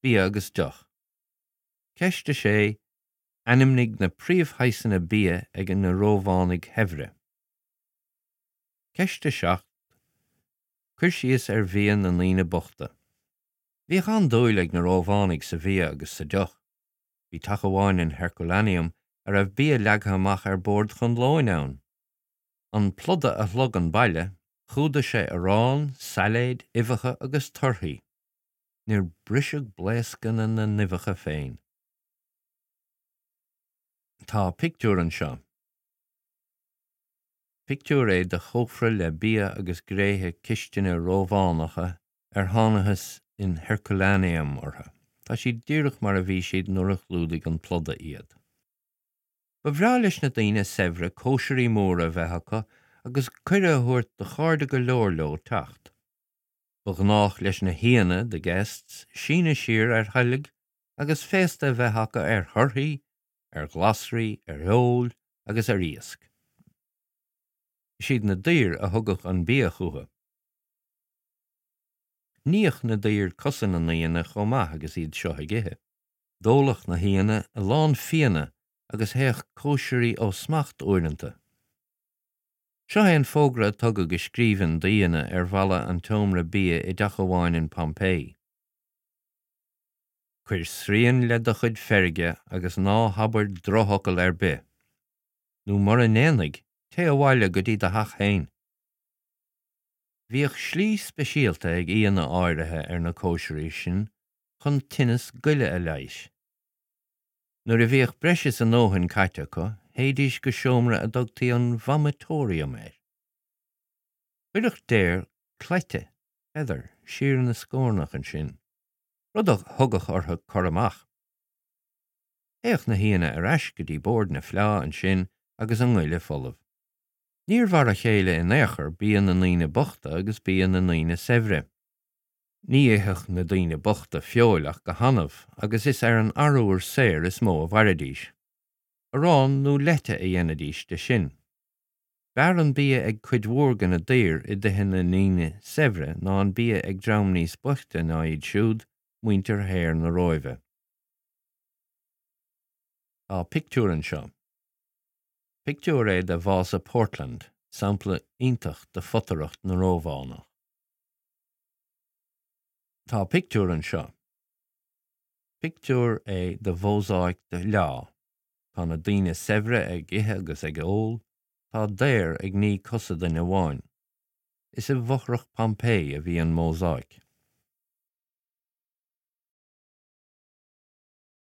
Bia agus deoch. Ceist 6, Ainmnigh na príomhshaghsanna bia ag na Rómhánaigh shaibhre. Ceist 7, Cuir síos ar bhia na ndaoine bochta. Bhíodh an-dúil ag na Rómhánaigh sa bhia agus sa deoch. Bhí teach amháin in Herculaneum a raibh bia leagtha amach ar bord chun lóin ann. An pluda a shlog an baile, chumhdaigh sé arán, sailéid, uibheacha agus torthaí. Níor briseadh blaoscanna na n-uibheacha féin. Tá pictiúr anseo. Pictiúr é de chófra le bia agus gréithe cistine Rómhánacha ar thángthas in Herculaneum orthu. Tá siad díreach mar a bhí siad nuair a chlúdaigh an pluda iad. Ba bhreá leis na daoine saibhre cóisirí móra a bheith acu agus cuireadh a thabhairt do chairde go leor leo teacht. Ba ghnách leis na haíonna, the guests, síneadh siar ar thoilg agus féasta a bheith acu ar thorthaí, ar ghlasraí, ar fheoil agus ar iasc. Is iad na daoir a thugadh an bia chucu. Níodh na daoir cosa na n-aíonna chomh maith agus iad seo ag ithe. D'óladh na haíonna a lán fíona agus théadh cóisirí ó smacht uaireanta. Seo é an fógra a tugadh i scríbhinn d'aíonna ar bhalla an tseomra bia i dteach amháin in Pompeii. Cuir srian le do chuid feirge agus ná habair drochfhocal ar bith. Nó mura ndéanfaidh, téigh abhaile go dtí do theach féin. Bhíodh slí speisialta ag aíonna áirithe ar na cóisirí sin chun tinneas goile a leighis. Nuair a bhíodh breis is a ndóthain caite acu, théidís go seomra a dtugtaí an vomitorium air. Chuirfeadh daor cleite, feather, siar ina scornach ansin, rud a thugadh orthu cur amach. Théadh na haíonna ar ais go dtí bord na fleá ansin agus a ngoile folamh. Níor mhar a chéile in aon chor bia na ndaoine bochta agus bia na ndaoine saibhre. Ní itheadh na daoine bochta feoil ach go hannamh agus is ar an arbhar saor is mó a mhairidís. Arán nó leite a dhéanaidís de sin. B'fhearr an bia ag cuid mhór de na daoir i dtithe na ndaoine saibhre ná an bia ag dream níos boichte ná iad siúd, muintir shaor na Róimhe. Tá pictiúr anseo. Pictiúr é de Vása Portland, sampla iontach de photaireacht na Rómhánach. Tá pictiúr anseo. Pictiúr é de mhósáic de fhleá. Tá na daoine saibhre ag ithe agus ag ól, tá daor ag ní cosa duine amháin. Is i bhfothrach Pompeii a bhí an mhósáic.